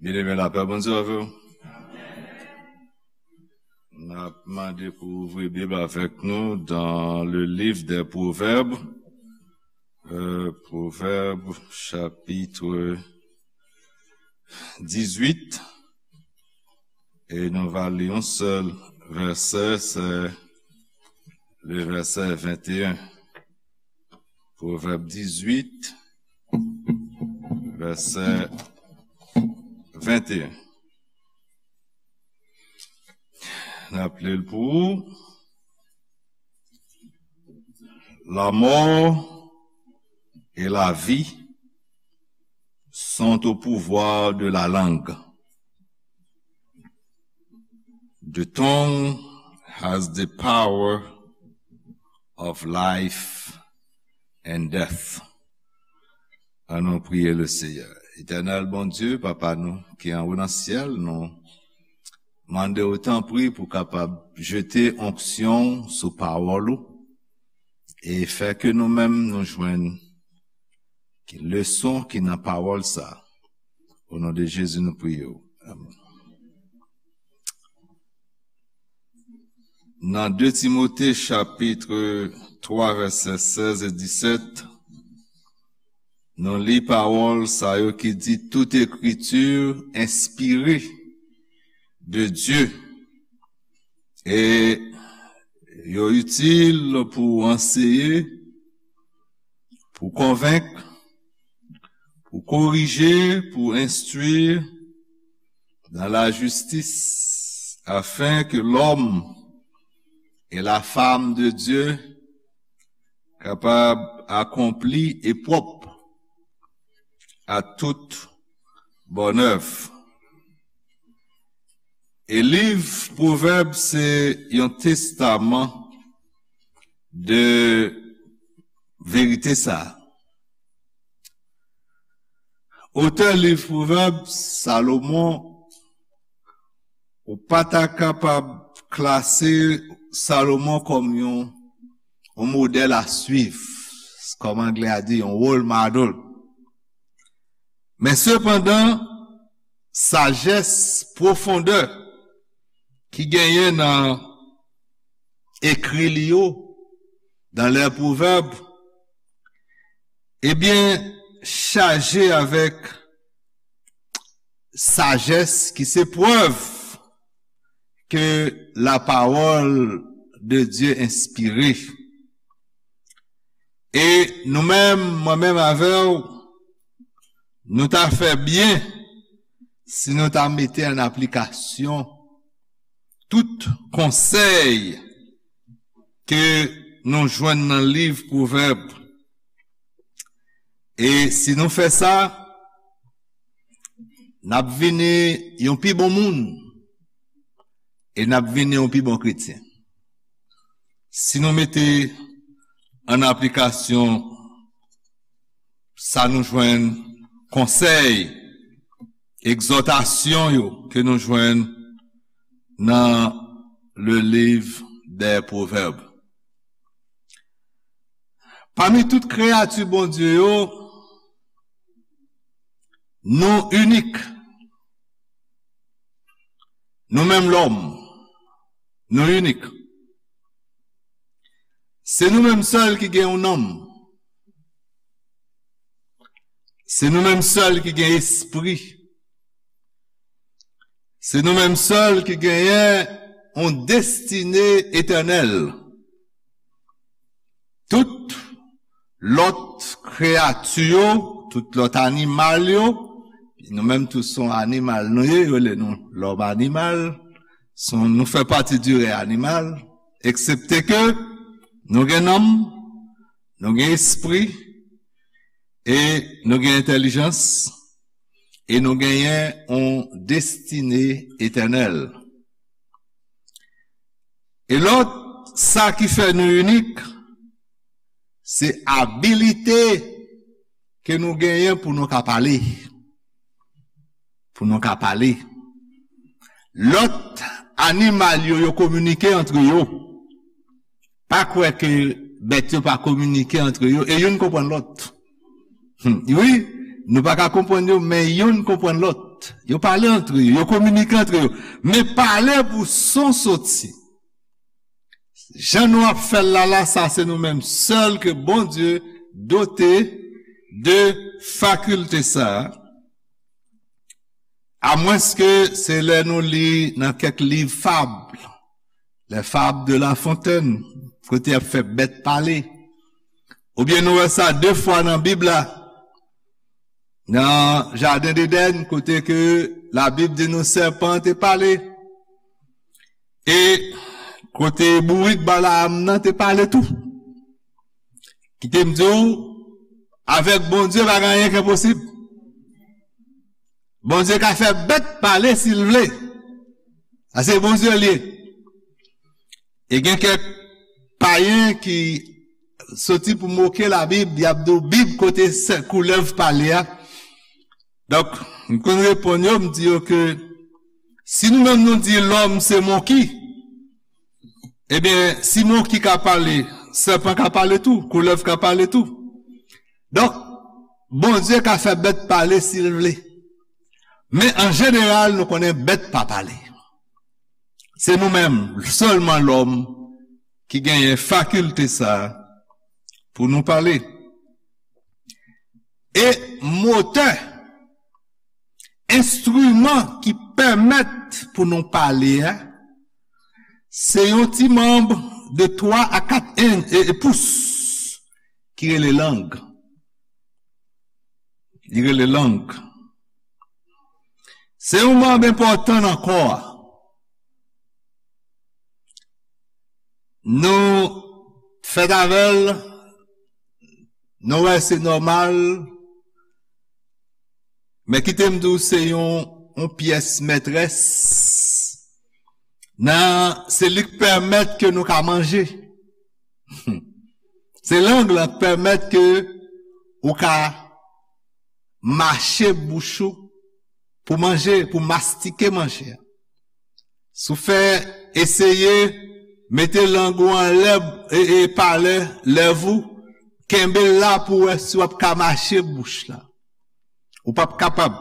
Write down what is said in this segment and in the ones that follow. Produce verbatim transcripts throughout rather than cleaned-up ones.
Byeneme, lapè Bondye avè w. N ap mande pou ouvri Bib avèk nou dans le livre des Proverbes, euh, Proverbes chapitre dix-huit, e nou va li yon sèl vèsè, se le vèsè vingt et un. Pwovèb dizwit, vèsè venteyen. N ap li l pou ou. La mort et la vie sont au pouvoir de la langue. The tongue has the power of life and death. Annou priye le Seyè. Etènèl Bondye, Papa nou ki anwo nan syèl, nou mande w tanpri pou kapab jete onksyon sou pawòl ou e fè ke nou menm nou jwenn ki leson ki nan pawòl sa. O non de Jezi nou priye w. Amèn. Nan de Timote chapit twa vèsè sèz e disèt, nou li pawòl sa yo ki di, toute écriture inspirée de Dieu, e yo itil pou anseye, pou konvenk, pou korije, pou enstwi dans la justice, afin que l'homme et la femme de Dieu kapab akonpli e pwòp à toute bonne œuvre. E liv Pwovèb se yon testaman de verite sa. Otè liv Pwovèb, Salomon, ou pa ta kapab klase Salomon kòm yon, yon modèl a swiv, kòm anglè a di, yon role model. Men sepandan, sajès, pwofondè ki genyen nan ekri li yo, dans les Proverbes, ebyen, chaje avèk sajès ki se prèv ke la parole de Dieu inspirée. E nou menm, mwen menm avè w, nou ta fè byen si nou ta mete an aplikasyon tout konsèy ke nou jwenn nan liv Pwovèb. E si nou fè sa, n ap vini yon pi bon moun e n ap vini yon pi bon kretyen. Si nou mete an aplikasyon sa nou jwenn, konsèy, egzòtasyon yo ke nou jwenn nan le livre des Proverbes. Pami tout kreyati Bondye yo, nou inik. Nou menm lòm, nou inik. Se nou menm sèl ki gen yon nanm. Se nou menm sèl ki gen espri. Se nou menm sèl ki genyen yon destine etènèl. Tout lòt kreyati yo, tout lòt animal yo, nou menm tou se yon animal nou ye, yo rele nou lòm animal, se yon, nou fè pati di rèy animal, eksepte ke nou gen nanm, nou gen espri, e nou gen entèlijans, e nou genyen yon destine etènèl. E lòt, sa ki fè nou inik, se abilite ke nou genyen pou nou ka pale. Pou nou ka pale. Lòt animal yo, yo kominike antre yo. Pa kwè ke bèt yo pa kominike antre yo, e youn konprann lòt. Hmm, wi, Nou pa ka konprann yo, men youn konprann lòt. Yo pale antre yo, yo kominike antre yo. Men pale pou son soti. Jan nou ap fè l la, la, sa se nou menm sèl ke Bondye dote de fakilte sa a. Amwenske se lè nou li nan kèk liv fab, les fables de La Fontaine, kote y ap fè bèt pale. Oubyen nou wè sa de fwa nan Bib la, nan jaden Edenn, kote ke Labib di nou sèpan te pale, e kote bourik Balaam nan te pale tou. Kite m di w, avèk Bondye pa gen anyen ki enposib. Bondye ka fè bèt pale si l vle. A se Bondye l ye. E gen kèk payen ki soti pou moke Labib, y ap di w Bib kote sè- koulèv pale a. Donk, m konn reponn yo, m di yo ke si nou menm nou di lòm se monki, ebyen, si monki ka pale, sèpan ka pale tou, koulèv ka pale tou. Donk, Bondye ka fè bèt pale si l vle. Men an jeneral, nou konnen bèt pa pale. Se nou menm, sèlman lòm, ki genyen fakilte sa a pou nou pale. E motè, enstriman ki pèmèt pou nou pale a, se yon ti manm de twa a kat en, e, e pous ki rele lang. Li rele lang. Se yon manm enpòtan nan kò a. Nou fèt avè l, nou wè se nòmal, men kite m di w se yon, yon pyès mètrès. Nan, se li k pèmèt ke nou ka manje. Se lang lan k pèmèt ke ou ka mache bouch ou pou manje, pou mastike manje a. Si w fè eseye mete lang ou anlè e, e palè lèv ou, kenbe l la pou w wè si w ap ka mache bouch la. Ou p ap kapab.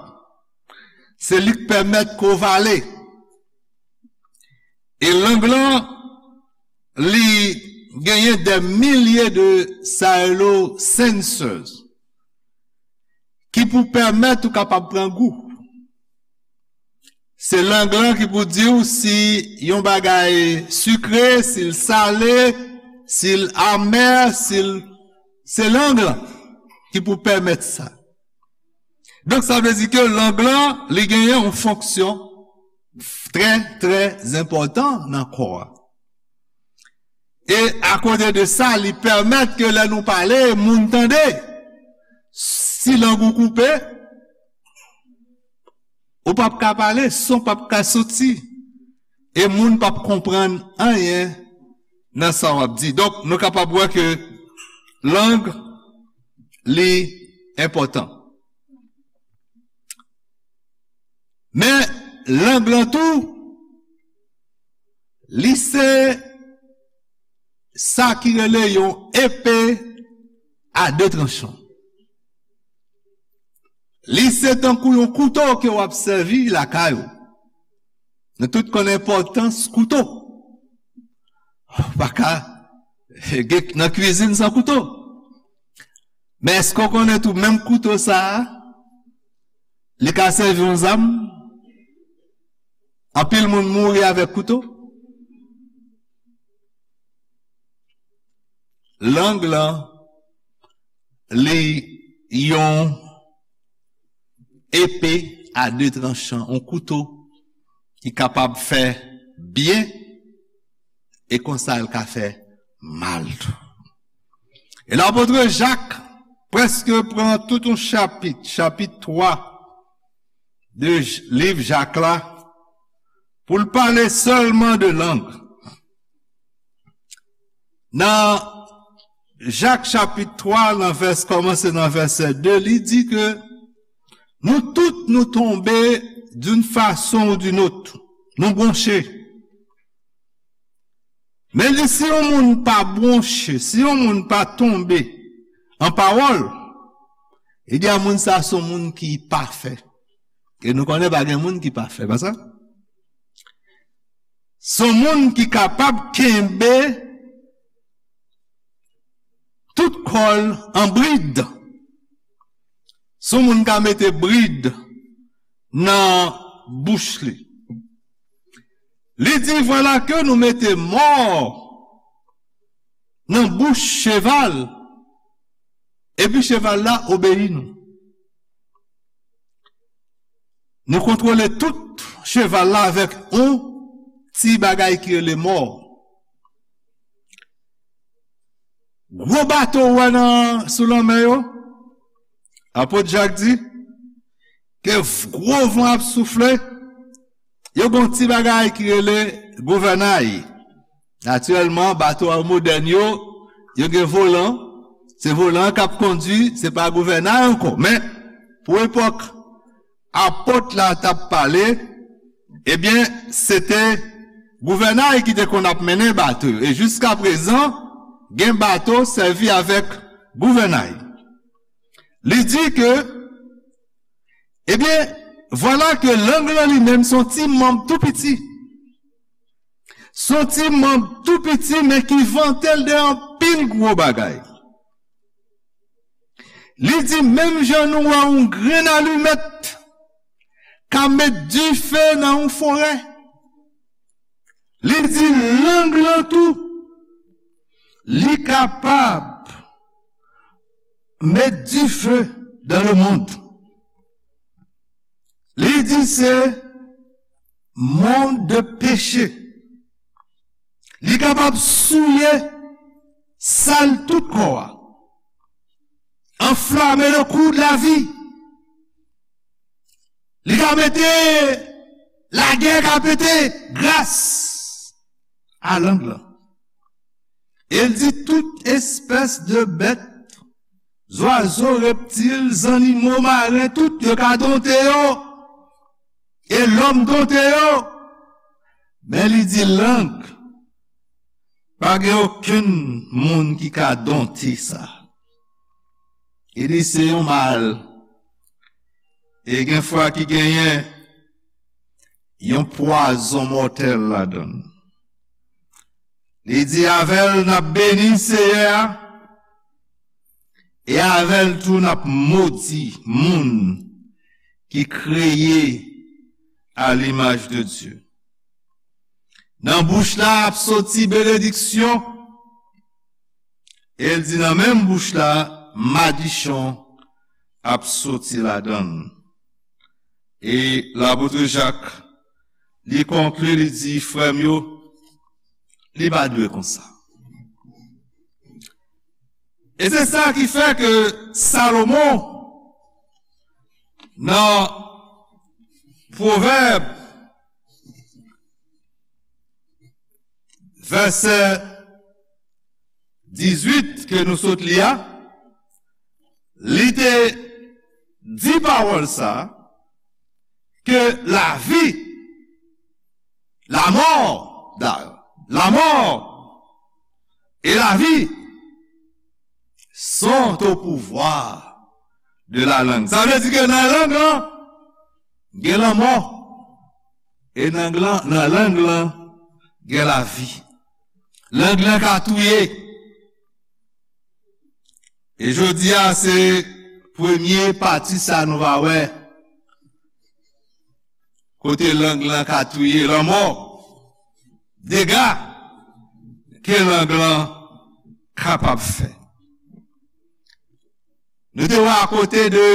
Se li k pèmèt ke w vale. E lang lan, li genyen dè milye de sa yo rele sensors ki pou pèmèt ou kapab pran gou. Se lang lan ki pou di w si yon bagay sikre, si l sale, si l amè, si l, se lang lan ki pou pèmèt sa. Donk, sa vle di ke lang lan, li genyen yon fonksyon trè, trè enpòtan nan kò a. E akote de sa, li pèmèt ke lè nou pale, moun tande. Si lang ou koupe, ou p ap ka pale, son p ap ka soti, e moun p ap konprann anyen nan sa w ap di. Donk, nou kapab wè ke lang, li enpòtan. Men, lang lan tou, li se sa ki rele yon epe a de tranchan. Li se tankou yon kouto ke w ap sèvi lakay ou. Nou tout konn enpòtans kouto. Ou pa ka gen nan kwizin san kouto. Men èske w konnen tou menm kouto sa a, li ka sèvi yon zam? Anpil moun mouri avèk kouto. Lang lan, li yon epe a de tranchan, yon kouto ki kapab fè byen e konsa l ka fè mal tou. E lapot Jak prèske pran tout yon chapit, chapit twa de J-, liv Jak la, pou l pale sèlman de lang. Nan Jak chapit twa, nan vès, kòmanse nan vèsè de, li di ke nou tout nou tonbe d'une façon ou d'une autre. Nou bwonche. Men li, si yon moun pa bwonche, si yon moun pa tonbe an pawòl, Li di a moun sa se yon moun ki pafè. E nou konnen pa gen moun ki pafè, pa sa? Se yon moun ki kapab kenbe tout kò l an brid. Se yon moun ka mete brid nan bouch li. Li di, vwala ke nou mete mò nan bouch cheval, epi cheval la obeyi nou. Nou kontwole tout cheval la avèk yon ti bagay ki rele mò. Gwo bato ou wè nan, sou lanmè yo, apot Jak di, ke gwo van ap soufle, yo gen yon ti bagay ki rele gouvènay. Natirèlman, bato a modèn yo, yo gen volan. Se volan k ap kondui, se pa gouvènay ankò. Men, pou epòk apot la t ap pale, ebyen, se te gouvènay ki te konn ap mennen bato yo. E jiska prezan, gen bato sèvi avèk gouvènay. Li di ke, ebyen, vwala ke lang lan li menm se yon ti manm tou piti. Se yon ti manm tou piti, men ki vante l de anpil gwo bagay. Li di, menm jan nou wè yon grenn alimèt ka met dife nan yon forè, li di lang lan tou, li kapab met dife dans le monde. Li di se mond de peche. Li kapab souye sal tout kò a. Enflamer le cours de la vie. Li ka mete lagè ka pete gras a lang lan. E l di tout espès de bèt, zwazo, reptil, zannimo maren, tout yo ka donte yo. E lòm donte yo. Men li di lang, pa gen okenn moun ki ka donte sa. Li di se yon mal. E gen fwa ki genyen yon pwazon mòtèl ladan l. Li di, avè l n ap beni Seyè a, e avè l tou n ap modi moun ki kreye a limaj de Dye. Nan bouch la ap soti benediksyon, e l di nan menm bouch la, madichon ap soti ladan l. E lapot Jak, li konkli, li di, frè m yo, li pa dwe konsa. E se sa ki fè ke Salomon, nan Pwovèb, vèsè dizuit ke nou sot li a, li te di pawòl sa, ke lavi, la mort, d'ailleurs, la mort et la vie sont au pouvoir de la langue. Sa vle di ke nan lang lan, gen lanmò. E nan, nan lang lan, gen lavi. Lang lan ka touye. E jodi a, se premye pati sa nou va wè. Kote lang lan ka touye, lanmò, dega ke lang lan kapab fè. Nou te wè akote de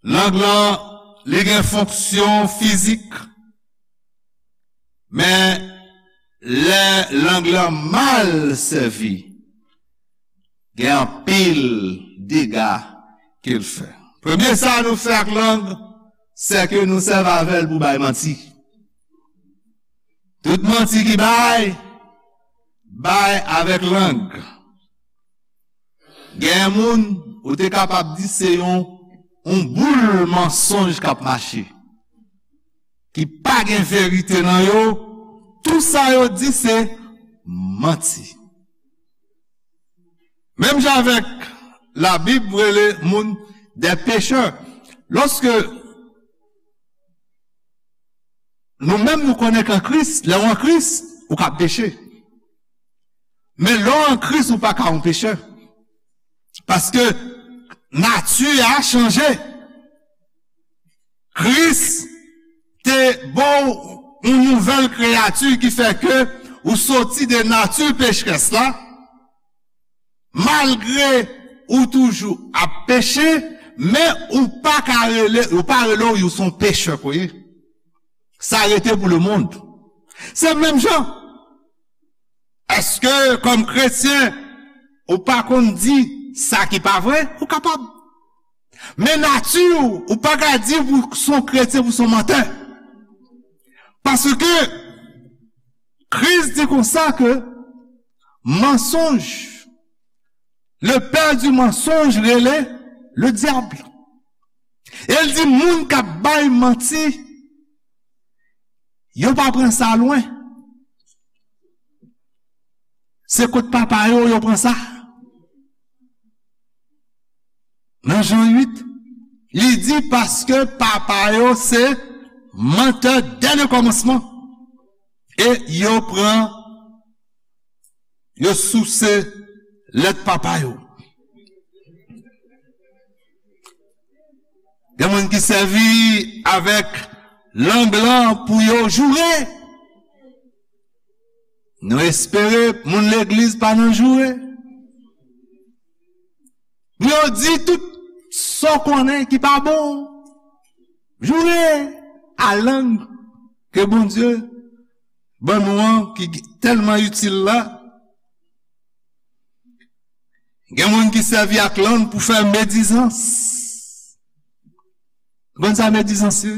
lang lan, li gen fonksyon fizik, men lè lang lan mal sèvi, gen anpil dega ke l fè. Premye sa nou fè ak lang, se ke nou sèvi avè l pou bay manti. Tout manti ki bay, bay avèk lang. Gen moun, ou te kapab di se yon, yon boul mansonj k ap mache, ki pa gen verite nan yo, tout sa yo di se manti. Menm jan avèk Labib rele moun des pécheurs. Lòske nou menm nou konnen ke an Kris, lè w an Kris, ou ka peche. Men lè w an Kris, ou pa ka yon pechè. Paske nati a chanje. Kris te ba w yon nouvèl kreyati ki fè ke ou soti de nati pecherès la, malgre ou toujou ap peche, men ou pa ka rele, ou pa rele w, ou se yon pechè pou ye. Sa rete pou lemonn. Se menm jan. Èske kòm kretyen, ou pa konn di sa ki pa vre? Ou kapab. Men nati w, ou pa ka di pou se yon kretyen, pou se yon mantè. Paske Kris di konsa ke mansonj, le père du mensonge rele le diable. E l di moun k ap bay manti, yo pa pran sa lwen. Se kot papa yo, yo pran sa. Nan Jan uit, li di paske papa yo se mantè dè le kòmansman. E yo pran, yo souse lèt papa yo. Gen moun ki sèvi avèk lang lan pou yo joure. Nou espere moun legliz pa nan joure. Pou yo di tout sa w konnen ki pa bon. Joure a lang ke Bondye ban nou an, ki tèlman itil la. Gen moun ki sèvi ak lang pou fè medizans. Ou konn sa medizans ye?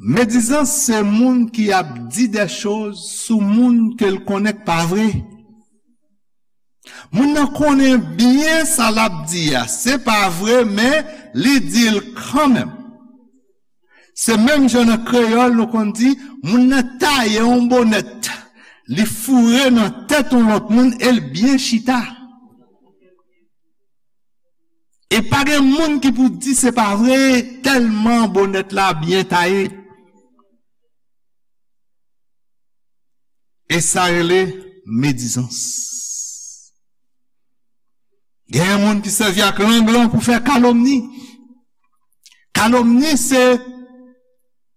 Medizans se moun ki ap di de choz sou moun ke l konnen k pa vre. Moun nan konnen byen sa l ap di a, se pa vre, men li di l kanmenm. Se menm jan nan kreyòl nou konn di, moun nan taye yon bonèt, li foure nan tèt yon lòt moun e l byen chita. E pa gen moun ki pou di se pa vre, tèlman bonèt la byen taye. E sa rele medizans. Gen moun ki sèvi ak lang lan pou fè kalomni. Kalomni se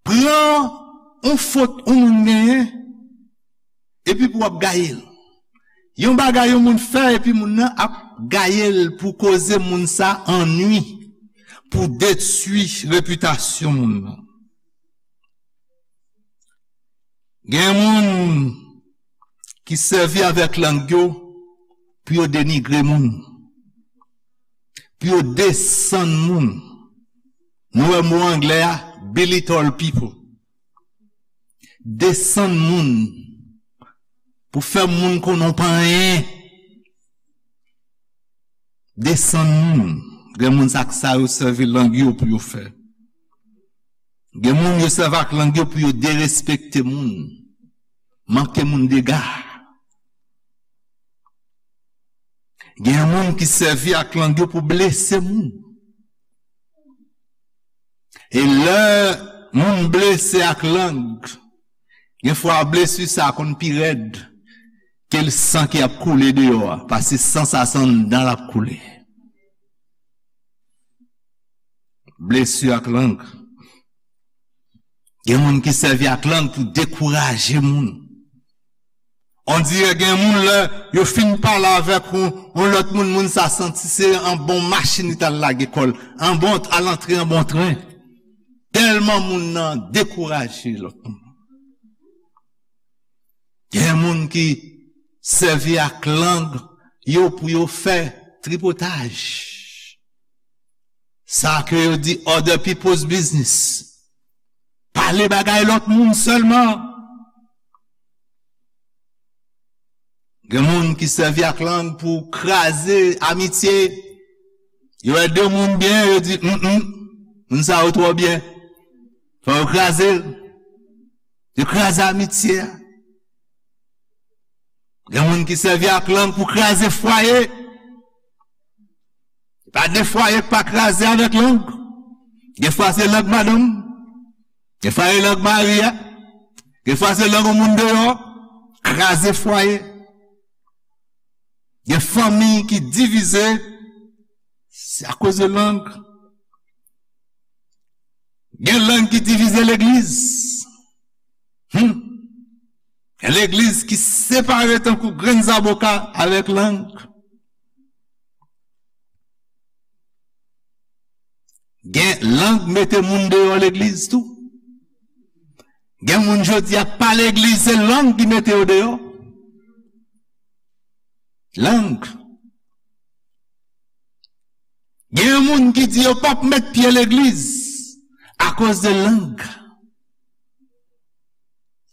pran yon fot yon moun genyen, epi pou w ap gaye l. Yon bagay yon moun fè, epi moun nan ap gaye l pou koze moun sa annwi, pou detwi repitasyon moun nan. Gen moun ki sèvi avèk lang yo pou yo denigre moun, pou yo desann moun. Nou wè mo anglè a, belittle people. Desann moun, pou fè moun konnen w pa anyen. Desann moun. Gen moun sa k sa yo sèvi lang yo pou yo fè. Gen moun yo sèvi ak lang yo pou yo derespekte moun, manke moun dega. Gen moun ki sèvi ak lang yo pou blese moun. E lè moun blese ak lang, gen fwa blesi sa konn pi rèd ke l san ki ap koule deyò a, paske san sa se anndan l ap koule. Blesi ak lang. Gen moun ki sèvi ak lang pou dekouraje moun. On dirè gen moun lè yo fin pale avèk yon, yon lòt moun, moun sa santi se an bon machin li t al lage kò l, an bon, al antre an bon tren. Tèlman moun nan dekouraje lòt moun. Gen moun ki sèvi ak lang yo pou yo fè tripotaj. Sa ke yo di other people's business. Pale bagay lòt moun sèlman. Gen moun ki sèvi ak lang pou kraze amitye. Yo wè de moun byen, yo di, mm, mm, moun sa yo twò byen. Fò yo kraze l. Yo kraze amitye a. Gen moun ki sèvi ak lang pou kraze fwaye. Pa de fwaye k pa kraze avèk lang. Gen fwa se lang madanm, gen fwa se lang mari a, gen fwa se lang yon moun deyò, kraze fwaye. Gen fanmi ki divize, se akoz de lang. Gen lang ki divize legliz. Hmm. Gen legliz ki separe tankou grenn zaboka avèk lang. Gen lang mete moun deyò legliz tou. Gen moun jodi a pa legliz, se lang ki mete yo deyò. Lang. Gen moun ki di yo p ap met pye legliz akoz de lang.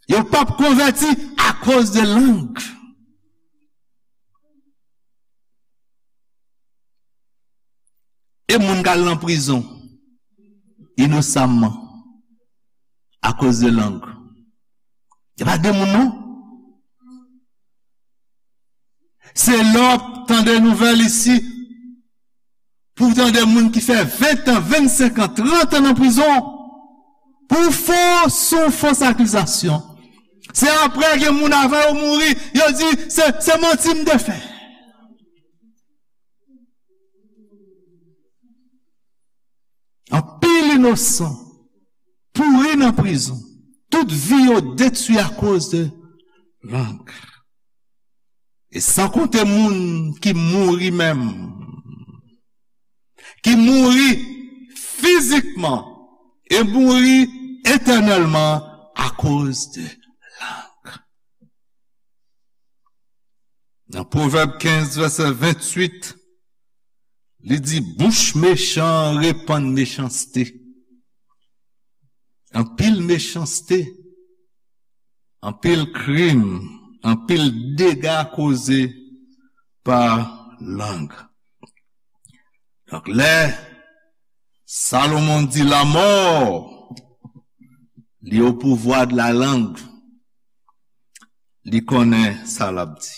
Yo p ap konvèti akoz de lang. E moun k al nan prizon inosamman akoz de lang. Se pa de moun non. Se lè w ap tande nouvèl isi, pou w tande moun ki fè ven tan, vennsenk an, trant an nan prizon pou fo, sou fos akizasyon. Se apre gen moun avan yo mouri, yo di se, se manti m te fè. Anpil inosan pouri nan prizon. Tout vi yo detwi akoz de lang. E san konte moun ki mouri menm, ki mouri fizikman e mouri etènèlman akoz de lang. Nan Pwovèb kenz, vèsè venntuit, li di, bouch mechan repann mechanste. Anpil mechanste, anpil krim, anpil dega koze pa lang. Donk, lè Salomon di, la mort li au pouvoir de la langue, li konnen sa l ap di.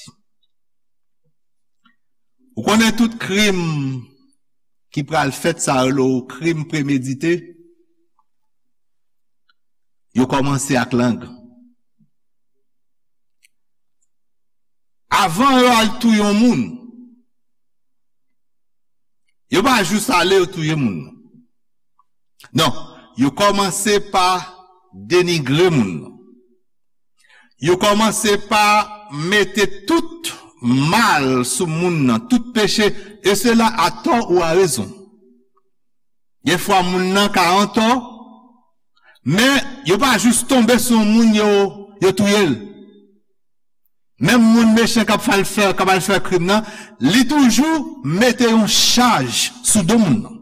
Ou konnen tout krim ki pral fèt, sa yo rele krim premedite, yo kòmanse ak lang. Avan yo al touye yon moun, yo pa jis ale yo touye moun nan. Non, yo kòmanse pa denigre moun nan. Yo kòmanse pa mete tout mal sou moun nan, tout peche, e sela a tò ou a rezon. Gen fwa moun nan ka antò, men yo pa jis tonbe sou yon moun yo, yo touye l. Menm moun mechan k ap fè, k ap al fè krim nan, li toujou mete yon chaj sou do moun nan.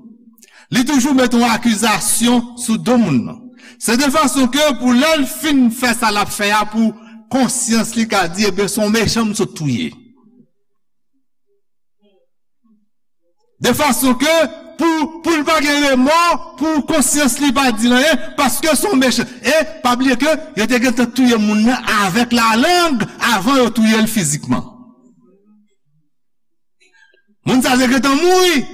Li toujou mete yon akizasyon sou do moun nan. Se de fason ke pou lè l fin fè sa l ap fè a, pou konsyans li ka di, ebyen, se yon mechan m sot touye. De fason ke pou, pou l pa gen remò, pou konsyans li pa di l anyen, paske se yon mechan. E pa bliye ke yo te gentan touye moun nan avèk lalang avan yo touye l fizikman. Moun sa te gentan mouri.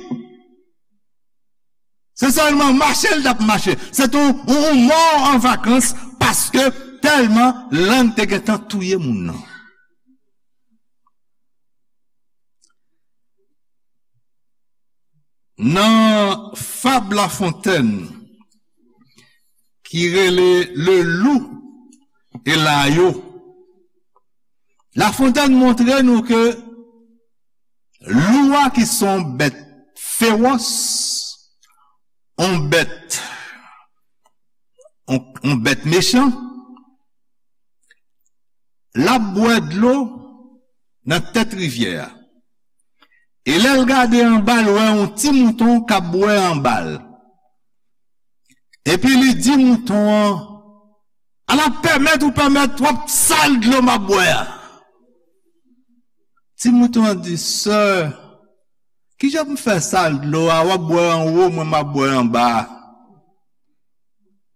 Se sèlman mache l t ap mache. Se te yon, yon, yon mò an vakans paske tèlman lang te gentan touye moun nan. Nan fab La Fontaine ki rele Le Loup et l'Agneau, La Fontaine montre nou ke lou a ki se yon bèt fewòs, yon bèt, yon, yon bèt mechan, l ap bwè dlo nan tèt rivyè a. E lè l gade anba l, wè yon ti mouton k ap bwè anba l. Epi li di mouton an, "Ala pèmèt ou pèmèt w ap sal dlo m ap bwè a." Ti mouton an di, "Sè, kijan pou m fè sal dlo a, w ap bwè anwo, mwen m ap bwè anba a?"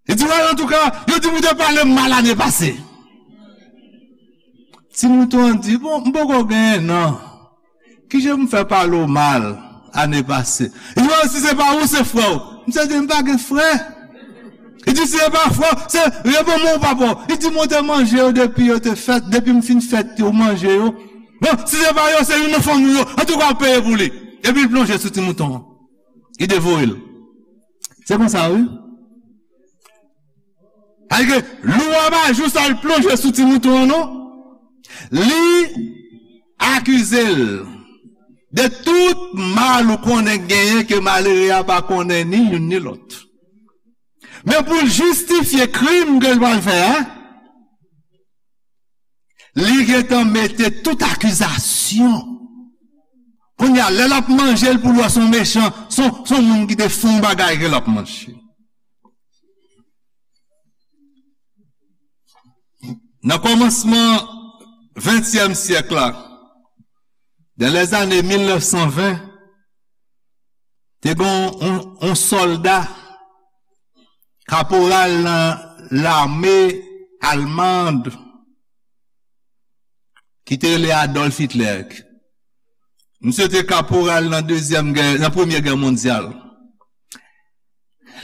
Li di, "Wè, antouka, yo di m ou te pale m mal ane pase." Ti mouton an di, "Bon, m poko genyen non. Kijan m fè pale w mal? ane pase. Li di, "Oh, si se pa ou, se frè w." Misye di, "M pa gen frè." Li di, "Si se pa frè w, se, reponn mwen ou papa w." Li di, "Mwen te manje yo depi yo te fèt, depi m fin fèt yo, manje yo. Bon, si se pa yo, se youn nan fanmi w yo. Antouka, w peye pou li." Epi l plonje sou ti mouton an. Li devore l. Se konsa, wi. Paske lou a pa jis al plonje sou ti mouton an, non. Li akize l de tout mal ou konnen genyen ke malere a pa konnen ni youn ni lòt. Men pou l jistifye krim ke l pral fè a, li gentan mete tout akizasyon. Kounye a, lè l ap manje l pou l wè se yon mechan, se yon, se yon moun ki te fè yon bagay ke l ap manje. Nan kòmansman ventyèm syèk la, dans les années mil nèf san ven, te gen yon, yon sòlda, kaporal nan lame almand, ki te rele Adolf Hitler. Misye te kaporal nan dezyèm gè, nan premye gè mondyal.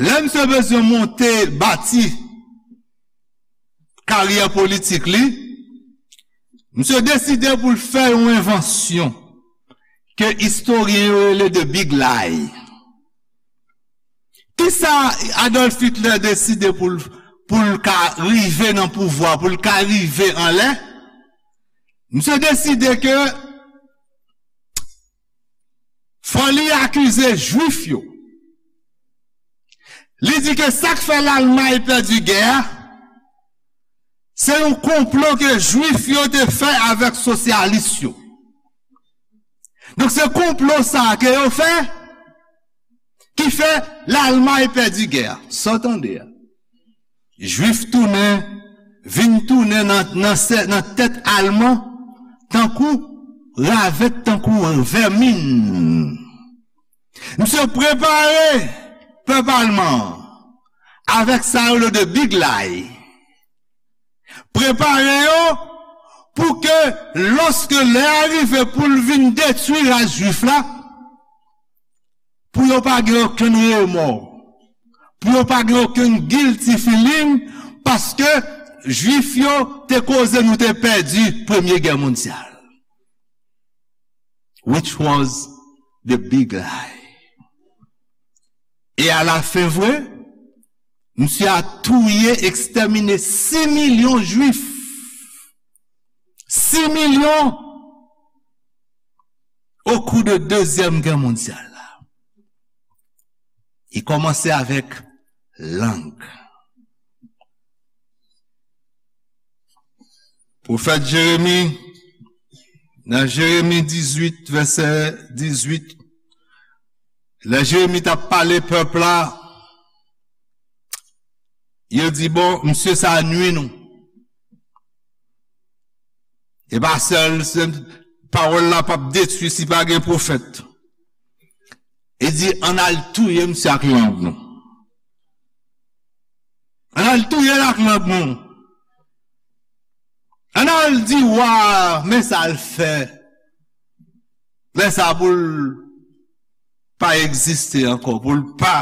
Lè misye bezwen monte, bati karyè politik li, misye deside pou l fè yon envansyon ke istoryen yo rele the Big Lie. Kisa Adolf Hitler deside pou l, pou l ka rive nan pouvwa, pou l ka rive anlè? Misye deside ke fò li akize Jwif yo. Li di ke sa k fè Lalmay pèdi gè a, se yon konplo ke Jwif yo te fè avèk sosyalis yo. Donk, se konplo sa a ke yo fè, ki fè Lalmay pèdi gè a. Sa w tande a. Jwif tounen, vin tounen nan, nan sè-, nan tèt Alman, tankou ravèt, tankou vèmin. Misye prepare pèp Alman an avèk sa yo rele the Big Lie. Prepare yo pou ke, lòske lè a rive pou l vin detwi ras Jwif la, pou yo pa gen okenn remò, pou yo pa gen okenn guilty feeling, paske Jwif yo te koze nou te pèdi premye gè mondyal. Which was the big lie. E alafen vre, misye a touye, ekstèmine sis milyon Jwif. Sis milyon au cours de dezyèm gè mondyal la. Li kòmanse avèk lang. Pwofèt Jeremi, nan Jeremi dizuit, vèsè dizuit, lè Jeremi t ap pale pèp la, yo di, "Bon, misye sa a nwi nou." E pa sèl, se pawòl la p ap detwi si pa gen pwofèt. E di, "Ann al touye misye ak lang nou. Ann al touye l ak lang nou. Ann al di wa a, men sa l fè. Lè sa pou l pa egziste ankò, pou l pa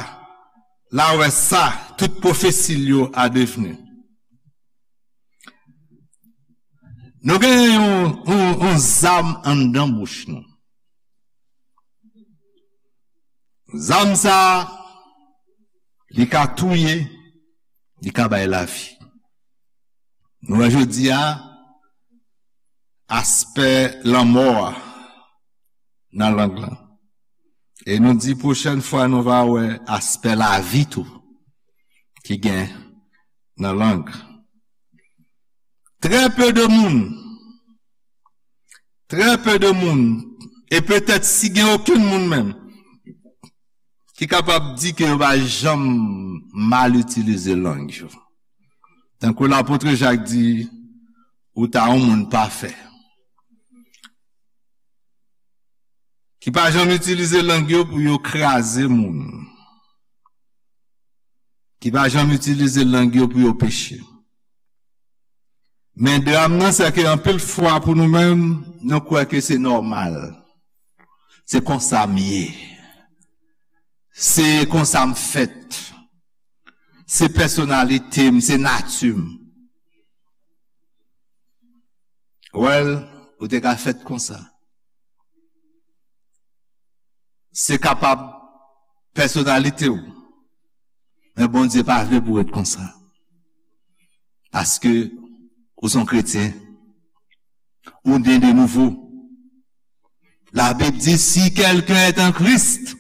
la wè sa, tout pwofesi l yo a devni." Nou gen yon, yon, yon zam anndan bouch nou. Zam sa a, li ka touye, li ka bay lavi. Nou wè jodi a, aspè lanmò a nan lang lan. E nou di pwochèn fwa nou va wè aspè lavi tou ki gen nan lang. Très peu de moun, très peu de moun, e petèt si gen okenn moun menm, ki kapab di ke yo pa janm mal itilize lang yo. Tankou lapot Jak di, ou ta yon moun pafè. Ki pa janm itilize lang yo pou yo kraze moun. Ki pa janm itilize lang yo pou yo peche. Men dram nan, se ke anpil fwa pou nou menm, nou kwè ke se nòmal. Se konsa m ye. Se konsa m fèt. Se pèsonalite m, se nati m. Well, ou te ka fèt konsa. Se kapab pèsonalite w. Men Bondye pa vle pou w ret konsa. Paske ou se yon kretyen. Ou ne de nouveau. La Bible dit, si quelqu'un est en Christ,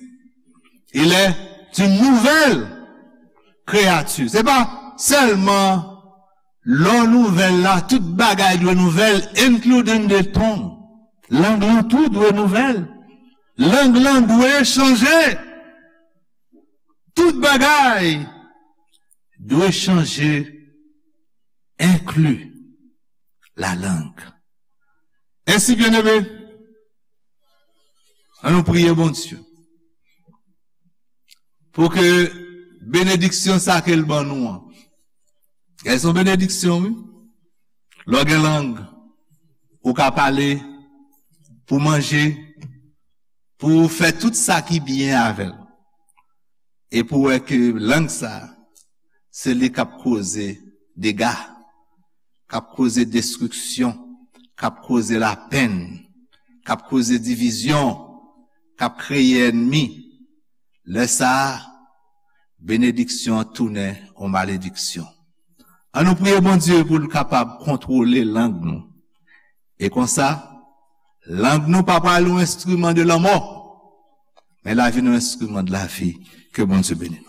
il est une nouvelle créature. Se pa sèlman lò nouvèl la, tout bagay dwe nouvèl, including the tongue. Lang lan tou dwe nouvèl. Lang lan dwe chanje. Tout bagay dwe chanje, enkli la lang. Ensi, byeneme, ann nou priye Bondye pou ke benediksyon sa ke l ban nou an. Gen yon benediksyon, wi. Lè w gen lang, ou ka pale, pou manje, pou fè tout sa ki byen avè l. E pou wè ke lang sa, se li k ap koze dega, k ap koze destriksyon, k ap koze lapenn, k ap koze divizyon, k ap kreye ènmi. Lè sa a, benediksyon an tounen yon malediksyon. Ann nou priye Bondye pou l kapab kontwole lang nou. E konsa, lang nou pa pral yon enstriman de lanmò, men l a vin yon enstriman de lavi. Ke Bondye beni nou.